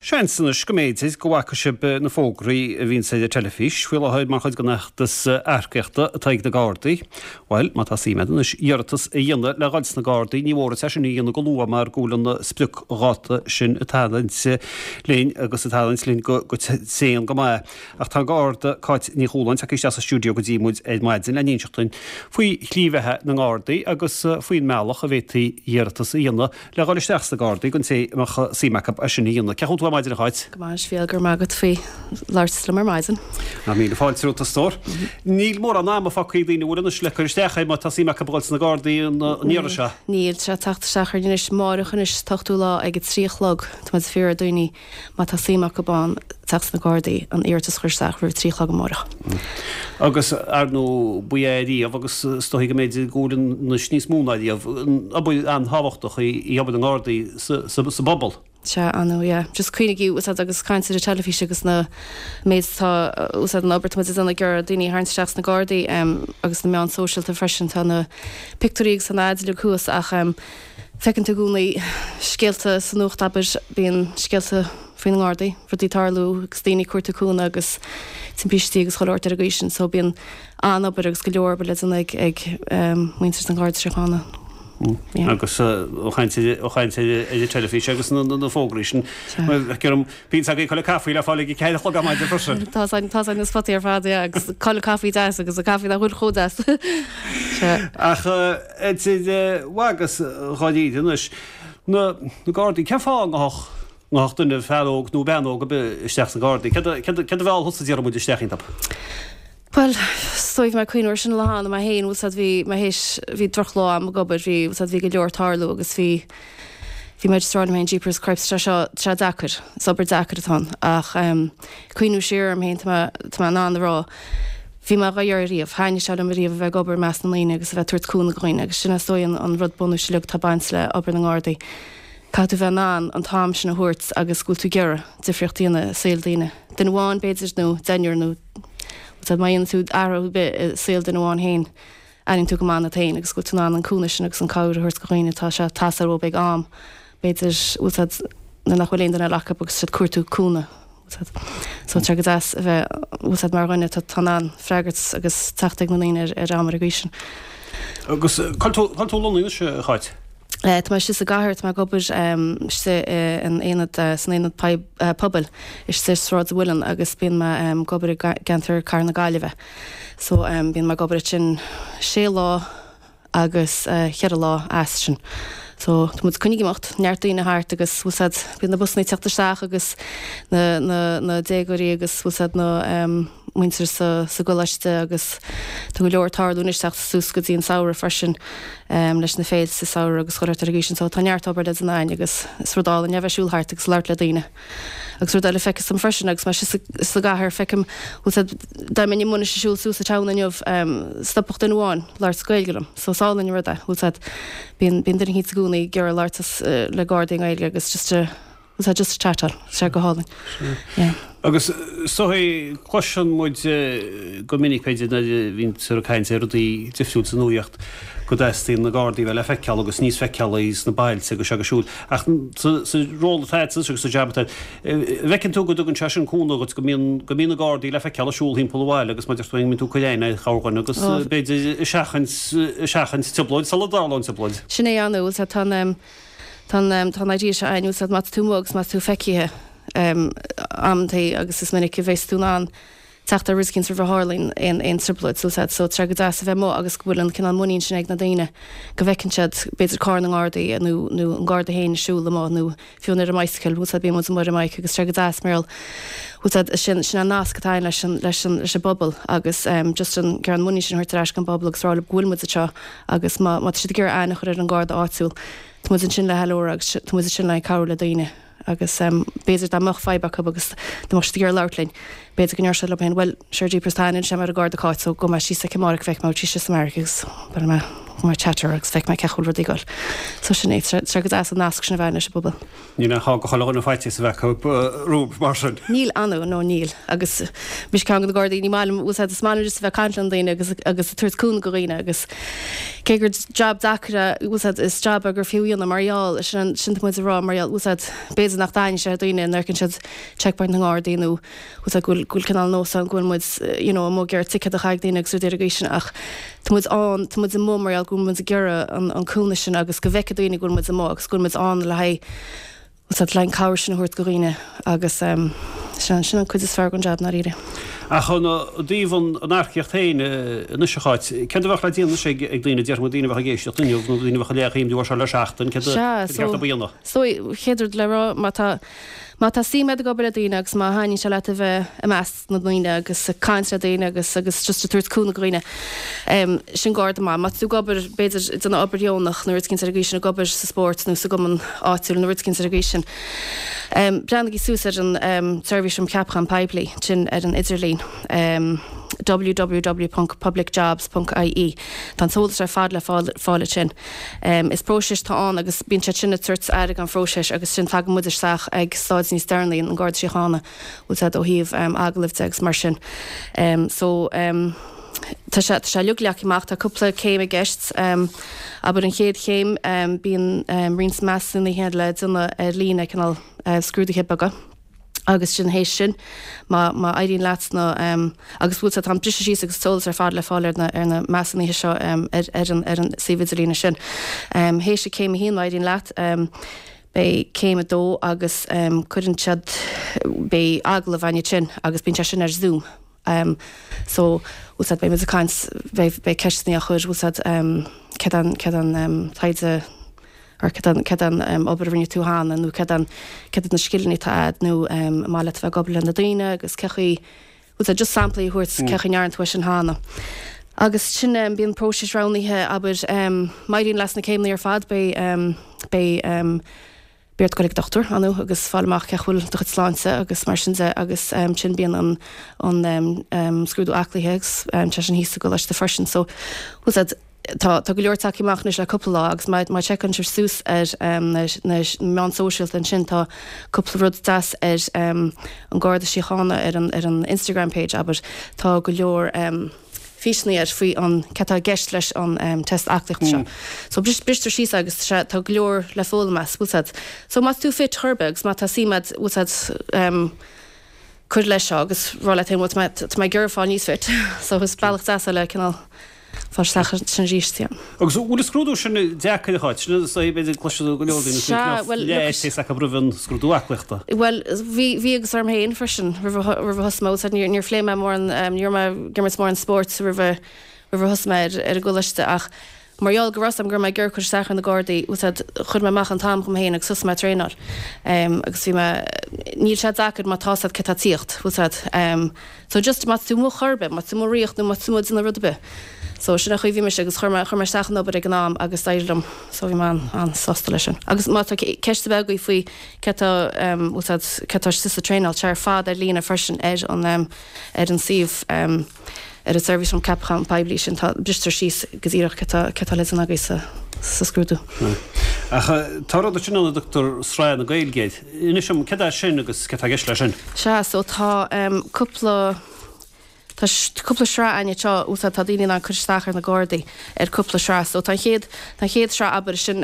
Seans anois go mb'fhéidir go bhfaca sibh na fógraí a bhíonns ar an teilifís faoi láthair mar chuid den fheachtas earcaíochta atá ag na Gardaí. Bhuel, má tá suim agat anois iarratas a dhéanamh le dhul sna Gardaí, ní mór duit é sin a dhéanamh go luath mar go bhfuil an spriocdháta sin ag tarraingt linn agus ag tarraingt linn go tréan go maith. Ach tá an Garda Cáit Ní Chualáin tagtha isteach sa stiúideo go dtí muid ar maidin le n-inseacht dúinn faoi shlí bheatha na nGardaí agus faoin mbealach a bhféadfaí iarratas a dhéanamh Le dhul isteach sna Gardaí don té a mbeadh suim acu é sin a dhéanamh. Cén chaoi a bhfuil tú ar maidin a Cháit? Go maith a Mhíchíl, go raibh maith agat faoi labhairt liom ar maidin. Ná míle fáilte romhat a stór. Níl mórán ama fágtha ag daoine an bhfuil anois le cur isteach air má tá suim acu a dhul sna Gardaí an iarraidh seo. Níl, tá sé ag teacht isteach orainn anois, máireach anois, an t-ochtú lá ag a 3 a chlog. Tá muid ag fiafraí ar daoine má tá suim acu ann teacht sna Gardaí, an iarratas a chur isteach roimh a 3 a chlog amáireach. Agus, ar ndóigh, ba ea riamh agus is dóigh go mb'fhéidir go bhfuil anois níos mó ná riamh, obair an-tábhachtach í obair na nGardaí sa bpobal. Sea, ar ndóigh, yeah. Just cuimhnigí, úsáid agus caint ar an teilifís agus na méid atá, úsáid an obair atá muid ag déanamh ag iarraidh daoine a tharraingt isteach sna Gardaí agus na meáin sóisialta freisin, tá na pictiúirí agus na ads uilig thuas ach Feiceann tú i gcónaí scéalta sa nuacht, abair, bíonn scéalta faoi na nGardaí, rudaí ag tarlú agus daoine ag cuartú cúnamh agus timpistí agus chuile shórt ar an gcaoi sin. So bíonn an-obair agus go leor obair le déanamh ag ag muintir an Gharda Síochána. Yeah. Agus ó chaint ó chaint ar an teilifís agus na na fógraí sin, feictear dom, bíonn agaibh chuile caife le fáil ag a 4 a chlog ar maidin freisin. Tá tá na spotaí ar fad, yeah, agus chuile caife deas agus an caife nach bhfuil chomh deas. Sea. Ach idir mhaith agus dháiríre anois, na Gardaí, cén fáth a ngabhfadh, ngabhfadh duine, fear óg nó bean óg ar bith isteach sna Gardaí? Céard a, céard a, céard a mheall thusa déarfaidh muid isteach iontu? Bhuel, is dóigh bhí mé ag cuimhniú air sin an lá cheana mé féin, bhfuil 's a'd, bhí mé théis, bhí drochlá a'm ag obair, bhí, bhfuil 's a'd, bhí go leor ag tarlú agus bhí, bhí mé just ag rá liom féin, jeepers cripes, tá sé seo, tá sé deacair, is obair deacair atá ann ach em, cuimhniú siar orm féin, tá mé, tá mé in ann a rá, Bhí mé dhá iarraidh riamh. Thaitnigh sé liom ariamh a bheith ag obair i measc na ndaoine agus a bheith ag tabhairt cúnamh do dhaoine agus sin is dóigh an rud bunúis uilig atá ag baint le obair na nGardaí. Caithfidh tú bheith in ann an t-am sin a thabhairt agus go bhfuil tú ag iarraidh difríocht a dhéanamh i saol daoine. Duine amháin b'fhéidir nó deichniúr nó má dhéanann tú athrú ar bith i saol duine amháin féin, airíonn tú go maith ionat féin agus go bhfuil tú in ann an cúnamh sin agus an cabhair a thabhairt do dhaoine atá sé ag teastáil uathu ag am b'fhéidir bhfuil 's a'd nuair nach bhfuil aon duine eile acu agus siad ag cuartú cúnamh bhfuil 's a'd. So tá sé go deas a bheith bhfuil 's a'd mar dhuine atá in ann freagairt agus teacht ag na ndaoine ar ar am ar an gcaoi sin. Agus cá bhfuil tú cá bhfuil tú lonnaithe anois a Cháit? Tá mé istigh sa gcathair, tá mé ag obair istigh in aonad, san aonad pobail istigh i Sráid an Mhuilinn agus bíonn mé ag obair i gceantar Cathair na Gaillimhe. So bíonn mé ag obair ansin sé lá agus cheithre lá as sin. So tá muid coinnithe ag imeacht, neart daoine thart agus bhfuil 's a'd, bíonn na busanna ag teacht isteach agus na, na, na déagóirí agus bhfuil 's a'd na muintir sa, sa gcoláiste agus tá go leor ag tarlú anois teacht suas go dtí an samhradh freisin leis na féilte sa samhradh agus chuile shórt ar an gcaoi sin. So tá neart obair le déanamh againn agus is rud álainn é a bheith ag siúl thart agus labhairt le daoine. Agus rud eile feictear dom freisin, agus mé istigh sa gcathair, feicim, bhfuil 's a'd, dá mbeinn amuigh anois ag siúl suas an town inniu, stopfadh duine amháin labhairt Gaeilge liom. So is álainn an rud é, bhfuil 's a'd, bíonn, bíonn duine eicínt i gcónaí ag iarraidh labhairt le Gardaí i nGaeilge agus just a, bhfuil 's a'd, just a chatáil, tá sé go hálainn. Yeah. Agus is dóigh, cloiseann muid go minic, b'fhéidir, nuair a bhíonn ag caint ar rudaí difriúil sa nuaíocht, go dteastaíonn na Gardaí a bheith le feiceáil agus níos feiceálaí sna bailte agus seo agus siúd. Ach sa ról atá agat agus sa jab atá agat, an bhfeiceann tú go dtugann sé sin cúnamh dhuit, go mbíonn, go mbíonn na Gardaí le feiceáil ag siúl thimpeall an bhaile agus mar a deir tú, go mbíonn tú ag cur aithne ar chorrdhuine agus b'fhéidir ag seachaint, ag seachaint trioblóid sula dtarlónn trioblóid. Sin é an, bhfuil 's a'd, tá an, tá an, tá an idea seo a'inn, bhfuil 's a'd, má tá tú amuigh agus má tá tú feicthe amantaí agus is minic a bheas tú in ann teacht ar rud eicínt roimh a tharlaíonn aon aon trioblóid, bhfuil 's a'd. So tá sé go deas a bheith amuigh agus go bhfuil an cineál muinín sin ag na daoine go bhfeiceann siad b'fhéidir carr na nGardaí nó nó an Garda féin ag siúl amuigh nó fiú ar an mbicycle, bhfuil 's a'd, bíonn muid amuigh ar an mbike agus tá sé go deas mar gheall, bhfuil 's a'd, sin sin an nasc atá againn leis an leis an leis an bpobal agus ehm just an an muinín sin a thabhairt ar ais don bpobal agus rá leo go bhfuil muid anseo agus má má tá siad ag iarraidh aithne a chur ar an Garda áitiúil tá muid ansin le ceiliúradh agus tá muid ansin le cabhrú le daoine. Agus b'fhéidir dá mbeadh fadhb acu agus dá mbeadh siad ag iarraidh labhairt linn, b'fhéidir go ndéarfadh siad leo féin, bhuel, sure jeepers, tá aithne anois agam ar an Gharda Cáit so gabhfaidh mé síos aici amárach, feicfidh mé an bhfuil sí istigh sa mbeairic agus beidh mé. mar chatter agus feicfidh mé cén chaoi a bhfuil rudaí ag dul. So sin é, tá sé go deas an nasc sin a bheith leis an bpobal. Níl aon fáth do chuile dhuine faitíos a bheith acu romhat mar sin. Níl, ar ndóigh, no níl. Agus mise ceann de na Gardaí, ní maith liom, bhfuil 's a'd, is maith liom just a bheith ag caint le na daoine agus agus ag tabhairt cúnamh do dhaoine agus cé gur jab deacair é, bhfuil 's a'd, is jab é gur fiú a dhéanamh mar gheall, sin sin tá muid ag rá mar gheall, bhfuil 's a'd, b'fhéidir nach dtaitníonn sé le daoine nuair a fheiceann siad checkpoint na nGardaí nó bhfuil 's a'd go bhfuil go bhfuil cineál nós ann go bhfuil muid you know amuigh ag iarraidh ticéad a chaitheamh ag daoine agus rudaí ar an gcaoi sin ach tá muid ann, tá muid amuigh mar gheall go bhfuil muid ag iarraidh an an cúnamh sin agus go bhfeicfidh daoine go bhfuil muid amuigh agus go bhfuil muid ann le haghaidh bhfuil 's a'd le haghaidh an cabhair sin a thabhairt do dhaoine agus ehm sin sin an cuid is fearr den jab ndáiríre. Ach ó thaobh an an earcaíocht féin anois a Cháit, céard a bheadh le déanamh anois ag ag daoine, déarfaidh muid daoine a bheadh ag éisteacht inniu nó daoine a bheadh ag léamh an leabhar seo le seachtain, céard a Sea, céard so a bheadh a dhéanamh? So, chéad rud le rá má tá Má tá suim agat ag obair le daoine agus má thaitníonn sé leat a bheith i measc na ndaoine agus ag caint le daoine agus agus just ag tabhairt cúnamh do dhaoine, sin Garda maith. Má tá tú ag obair, b'fhéidir, ag déanamh obair dheonach nó rud eicínt ar an gcaoi sin, ag obair sa spórt nó sa gcumann áitiúil nó rud eicínt ar an gcaoi sin, breathnaigí suas ar an tSeirbhís um Cheapachán Poiblí, sin ar an idirlíon, www.publicjobs.ie. Tá an t-eolas ar fad le fáil ansin. Is próiseas atá ann agus bíonn siad sin ag tabhairt aire don phróiseas agus sin tagann muid isteach ag stáid níos deireanaí, an Garda Síochána, bhfuil 's a'd ó thaobh agallaimh de agus mar sin. So tá sé tá sé uilig leagtha amach, tá cúpla céim i gceist. Abair an chéad chéim bíonn roinnt measúnuithe le déanamh ar líne, cineál scrúduithe beaga. Agus sin théis sin, má, má éiríonn leat sna, agus bhfuil 's a'd, tá an briseadh síos agus an t-eolas ar fad le fáil ar na, ar na measúnuithe seo ar, ar an, ar an suíomh idirlíne sin. Théis an céim a haon, má éiríonn leat, beidh céim a dó agus cuireann siad, beidh agallamh ann ansin agus bíonn sé sin ar Zoom. So, bhfuil 's a'd, beidh muid ag caint, beidh, beidh ceisteanna á chur, bhfuil 's a'd, céard an, céard an taighde, or céard an, céard an obair a rinne tú cheana nó céard an, céard iad na scileanna atá a'd nó an maith leat a bheith ag obair le na daoine agus cé chaoi, bhfuil 's a'd, just samplaí a thabhairt cé chaoi a ndearna tú é sin cheana. Agus sin, bíonn próiseas roghnaithe, abair, má éiríonn leat sna céimeanna ar fad beidh, beidh, beidh ort goil ag dochtúir, ar ndóigh, agus fáil amach cé chaoi bhfuil do chuid sláinte agus mar sin de agus ansin bíonn an, an scrúdú aclaithe agus tá sé sin thíos sa gcoláiste freisin. So, bhfuil 's a'd, tá, tá go leor tagtha amach anois le cúpla lá agus má, má sheiceálann sibh suas ar na, na meáin sóisialta ansin tá cúpla rud deas ar an Garda Síochána ar an, ar an Instagram page, abair, tá go leor físeanna air faoi an céard atá i gceist leis an test aclaíochta seo. So bristear síos é agus tá go leor le foghlaim as, bhfuil 's a'd. So má tá tú fit chor ar bith agus má tá suim a'd, bhfuil 's a'd, cur leis seo agus rá leat féin, bhuel tá mé, tá mé ag iarraidh fáil níos fit. So is bealach deas é le cineál fáil isteach ansin arís, yeah. Agus an bhfuil an scrúdú sin deacair a Cháit? Sin is dóigh b'fhéidir cloistear go leor daoine faoi Sea, bhuel, look, faitíos acu roimh an scrúdú aclaíochta. Bhuel, bhí, bhí agus orm féin freisin roimh a, roimh a thosaigh mé, bhfuil 's a'd, níor, níor phléigh mé mórán, ní raibh mé ag imirt mórán spóirt roimh a, roimh a thosaigh mé ar, ar an gcoláiste ach mar gheall go raibh 's a'm go raibh mé ag iarraidh cur isteach ar na Gardaí, bhfuil 's a'd, chuir mé amach an t-am dhom féin agus thosaigh mé ag traenáil. Agus bhí mé, níl sé deacair má tá 's a'd céard tá ag tíocht, bhfuil 's a'd. So just má tá tú amuigh chor ar bith, má tá tú amuigh ag rith nó má tá tú amuigh ag déanamh rud ar bith. So sin an chaoi a bhí mise agus chuir mé, chuir mé isteach an obair ag an am agus d'éirigh liom. So bhí mé an-sásta leis sin. Agus má tá ceist ar bith agaibh faoi céard tá, bhfuil 's a'd, céard tá istigh sa traenáil, tá sé ar fad ar líne freisin ar an, ar an suíomh, ar an Seirbhís um Ceapachán Poiblí sin, tá, bristear síos go díreach céard tá, céard tá le déanamh agaibh sa, sa scrúdú. Ach tá rud ansin ann a dtugtar Sraith na Gaeilge air. Inis dom, céard é sin agus céard tá i gceist leis sin? Sea, so tá cúpla, tá cúpla sraith againn anseo, bhfuil 's a'd, tá daoine in ann cur isteach ar na Gardaí ar cúpla sraith. So tá an chéad, tá an chéad sraith, abair, sin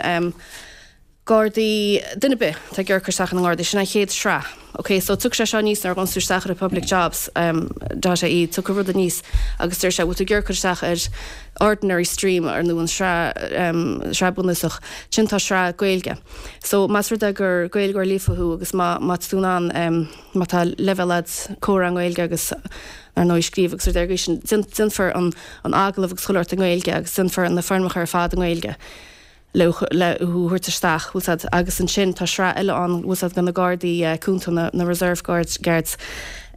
Gardaí, duine ar bith atá ag iarraidh cur isteach ar na nGardaí, sin an chéad sraith. Ok, so tiocfaidh sé seo aníos nuair a ghabhann tú isteach ar an publicjobs dot ie, tiocfaidh rud aníos agus deir sé, bhfuil tú ag iarraidh cur isteach ar ordinary stream ar nó an sraith, sraith bunúsach, sin tá sraith Gaeilge. So más rud é gur Gaeilgeoir líofa thú agus má má tá tú in ann má tá leibhéal a'd comhrá i nGaeilge agus ar ndóigh scríobh agus rudaí ar an gcaoi sin, déanfar an an agallamh agus chuile shórt i nGaeilge agus déanfar na foirmeacha ar fad i nGaeilge le le thú a thabhairt isteach, bhfuil 's a'd, agus ansin tá sraith eile ann, bhfuil 's a'd, do na Gardaí Cúnta, na na Reserve Guards, Guards,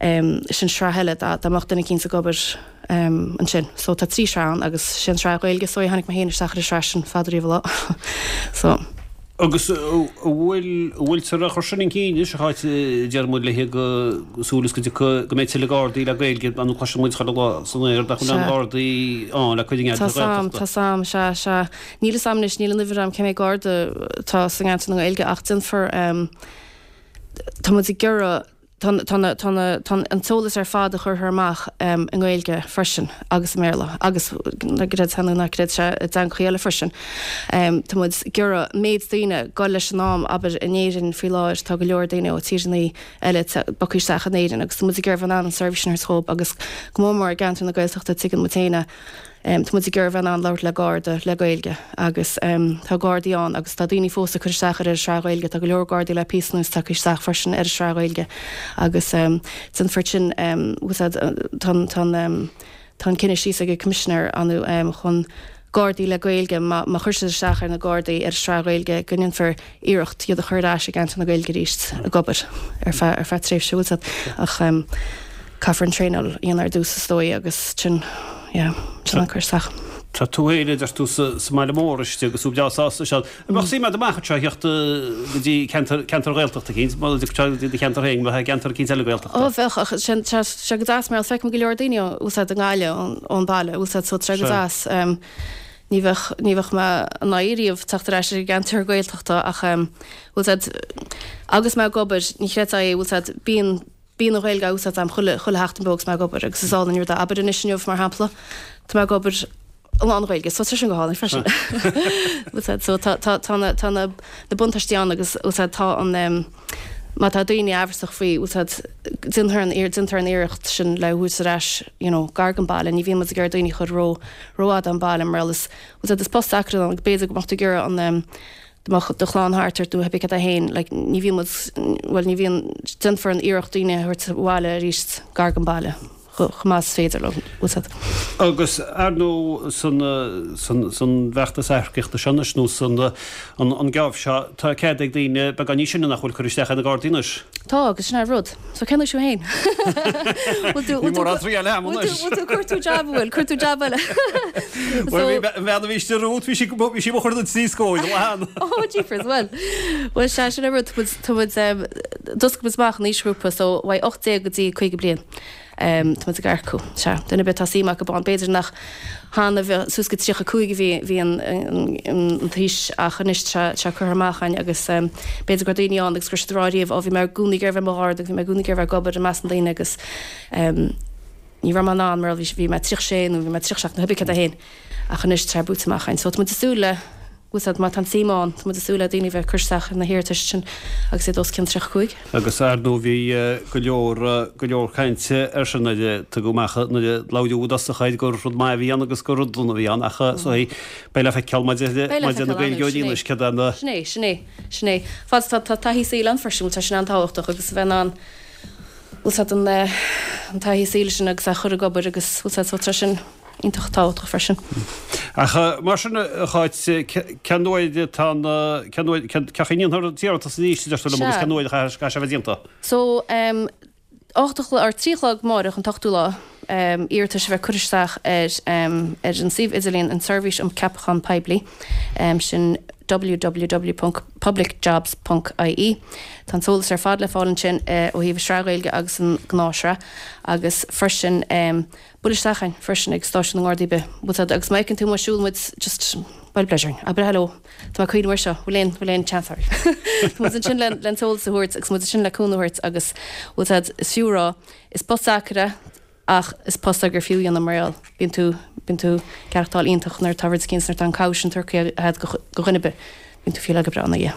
sin sraith eile dá dá mbeadh duine eicínt ag obair ansin. So tá trí shraith ann agus sé an sraith Ghaeilge so tháinig mé féin isteach ar an sraith sin fada riamh an lá. So. Agus an bhfuil, an bhfuiltear á chur sin chun cinn anois, a Cháit, deir muid léi go súil is go dtiocfaidh, go mbeidh tuilleadh Gardaí le Gaeilge, nó cloiseann muid chuile lá san aer nach bhfuil aon Ghardaí ann le cuid i ngeantar na Gaeltachta. Tá 's a'm, sea, sea. Níl 'fhios a'm anois, níl an uimhir a'm cé mhéad Garda atá sa gceantar na Gaeilge ach déanfar, tá muid ag iarraidh, Tá an t-eolas ar fad a chuirfear amach i nGaeilge freisin agus i mBéarla agus, creid é nó ná creid é, i dteangachaí eile freisin. Tá muid ag iarraidh méid daoine dul leis an am, abair, in Éirinn faoi láthair tá go leor daoine ó tíreanna eile bogtha isteach in Éirinn agus tá muid ag iarraidh bheith in ann an seirbhís sin a thabhairt dhóibh agus go mór mór i gceantar na Gaeltachta tuigeann muid féin é. Tá muid ag iarraidh bheith in ann labhairt le Garda le Gaeilge agus tá Gardaí ann agus tá daoine fós ag cur isteach ar an sraith Ghaeilge. Tá go leor Gardaí le píosa anuas tagtha isteach freisin ar an sraith Ghaeilge agus déanfar sin, tá an cinneadh síos ag an Coimisinéir ann chun Gardaí le Gaeilge, má chuir siad isteach ar na Gardaí ar an sraith Ghaeilge go ndéanfar iarracht iad a chur ar ais i gceantar na Gaeilge arís ag obair ar feadh ar feadh tréimhse bhfuil 's a'd ach caithfear an traenáil a dhéanamh ar dtús is dóigh agus sin yeah sin an cur isteach. Tá tú féin a deir tú sa sa mbaile mór istigh agus tú breá sásta anseo. An mbeadh suim agat amach anseo a theacht go dtí ceantar ceantar Ghaeltachta eicínt, má go dtí do cheantar féin, bheith i gceantar eicínt eile Gaeltachta? Ó bheadh ach sin tá sé go deas mar feicim go leor daoine bhfuil 's a'd i nGaillimh ón baile bhfuil 's a'd so tá sé go deas. Ní bheadh, ní bheadh mé in aghaidh riamh teacht ar ais ar an gceantar Gaeltachta ach em, bhfuil 's a'd, agus mé ag obair, ní chreidfeá é, bhfuil 's a'd, bíonn, bíonn an Ghaeilge á úsáid a'm chuile, chuile sheachtain beo agus mé ag obair agus is álainn an rud é. Abair anois inniu mar shampla, tá mé ag obair i lán-Ghaeilge so tá sin go hálainn freisin. Bhfuil 's a'd, so tá, tá, tá na, tá na, na buntáistí ann agus bhfuil 's a'd, tá an em, má tá daoine amhrasach faoi, bhfuil 's a'd, déantar an, déantar an iarracht sin le thabhairt ar ais, you know, gar don baile, ní bhíonn muid ag iarraidh daoine a chur ró, rófhada ón baile mar is, bhfuil 's a'd, is post deacair ann agus b'fhéidir go mbeadh tú ag iarraidh an em, go mbeadh do chlann thart ort nó pé cad é féin, like, ní bhíonn muid, bhuel ní bhíonn, déanfar an iarracht daoine a thabhairt abhaile arís gar don baile chomh maith is féidir leo, bhfuil 's a'd. Agus ar ndóigh san, san, san bhfeachtas earcaíochta seo anois nó san, an, an geábh seo, tá cead ag daoine beagán níos sine nach bhfuil cur isteach ar na Gardaí anois. Tá, agus sin é an rud. So cén aois thú féin? Bhfuil tú, bhfuil tú, triail a'm anois. Bhfuil tú, cuir tú jab, bhfuil, cuir tú jab eile. Bhuel, bhí an bhean a bhí istigh romhat, bhí sí, bhí sí mo chur na trí scóir, lán. Oh, jeepers, bhuel. Bhuel, sea, sin é an rud, tá muid, tá muid, d'oscail muid amach an aoisghrúpa, so uaidh 18 go dtí 50 bliain. Tá muid ag earcú. Sea, duine ar bith atá suim acu ann. B'fhéidir nach cheana bhí suas go 35 a bhí bhí an an t-aois ach anois tá sé curtha amach againn agus b'fhéidir go raibh daoine ann agus go raibh siad ag rá riamh ó bhí mé i gcónaí ag iarraidh bheith i mo Gharda agus bhí mé i gcónaí ag iarraidh bheith ag obair i measc na ndaoine agus ní raibh mé in ann mar bhí bhí mé 36 nó bhí mé 37 nó pé cad é féin ach anois tá sé buaite amach againn. So tá muid ag súil le bhfuil 's a'd má tá an tsuim ann, tá muid ag súil le daoine a bheith ag cur isteach ar na hiarratais sin agus iad os cionn 35. Agus ar ndóigh bhí go leor, go leor cainte air sin nuair a tugadh amach, nuair a labhraíodh i dtosach air gur rud maith a bhí ann agus gur rud dona a bhí ann ach so beidh le feiceáil maidir le, maidir le na Gaeilgeoirí anois céard é na. Sin é, sin é, sin é. Fad is atá tá taithí saoil ann freisin, bhuel tá sin an-tábhachtach agus a bheith in ann, bhfuil 's a'd an, an taithí saoil sin agus a chur ag obair agus bhfuil 's a'd so tá sin. iontach tábhachtach freisin. Ach mar sin, a Cháit, cén uair atá an, cén uair, cén chaoi a ndéanfar an t-iarratas arís, a deir tú liom, agus cén uair a chaithfidh sé a bheith déanta? So, 8 a chlog, or 3 a chlog amáireach, an t-ochtú lá, iarratais a bheith curtha isteach ar, ar an suíomh idirlíon an tSeirbhís um Ceapachán Poiblí, sin www.publicjobs.ie. Tá an t-eolas ar fad le fáil ansin ó thaobh an sraith Ghaeilge agus an gnáthshraith agus freisin, Buail isteach chugainn freisin ag stáisiún na nGardaí ar bith, bhfuil 's a'd, agus má fheiceann tú muid siúl muid just buail bleid orainn, abair hello, tá mé ag cuimhneamh air seo, bhfuil aon, bhfuil aon chance oraibh? Tá muid ansin le, le an t-eolas a thabhairt agus muid ansin le cúnamh a thabhairt agus bhfuil 's a'd, is fiú a rá, is post deacair é ach is post é gur fiú a dhéanamh mar gheall, bíonn tú, bíonn tú ag aireachtáil iontach nuair atá rud eicínt, nuair atá an cabhair sin tugtha a'd do dhuine ar bith. Bíonn tú feel go breá ina dhiaidh.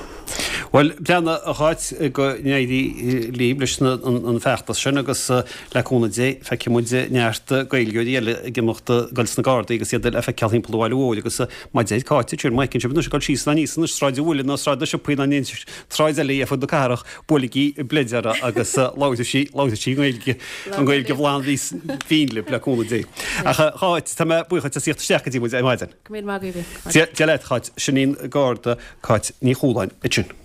Bhuel, breathnaigh, a Cháit, go n-éirí libh leis an bhfeachtas sin agus le cúnamh Dé feicfidh muid neart Gaeilgeoirí eile ag imeacht ag dul sna Gardaí agus iad le feiceáil thimpeall an bhaile mhóir agus mar a deir Cáit ansin, má fheiceann sibh anois ag dul síos ná aníos anois Sráid an Mhuilinn ná Sráid na Siopaí ná aon tsráid eile ar fud na cathrach, buailigí bleid orthu agus labharfaidh sí, labharfaidh sí Gaeilge, an Ghaeilge bhlan bhinn libh le cúnamh Dé. Ach a Cháit, tá mé buíoch duit as theacht isteach go dtí muid ar maidin. Go raibh míle maith agaibh. Dia leat, Cáit. Sin í an Garda Cáit Ní Chualáin ansin.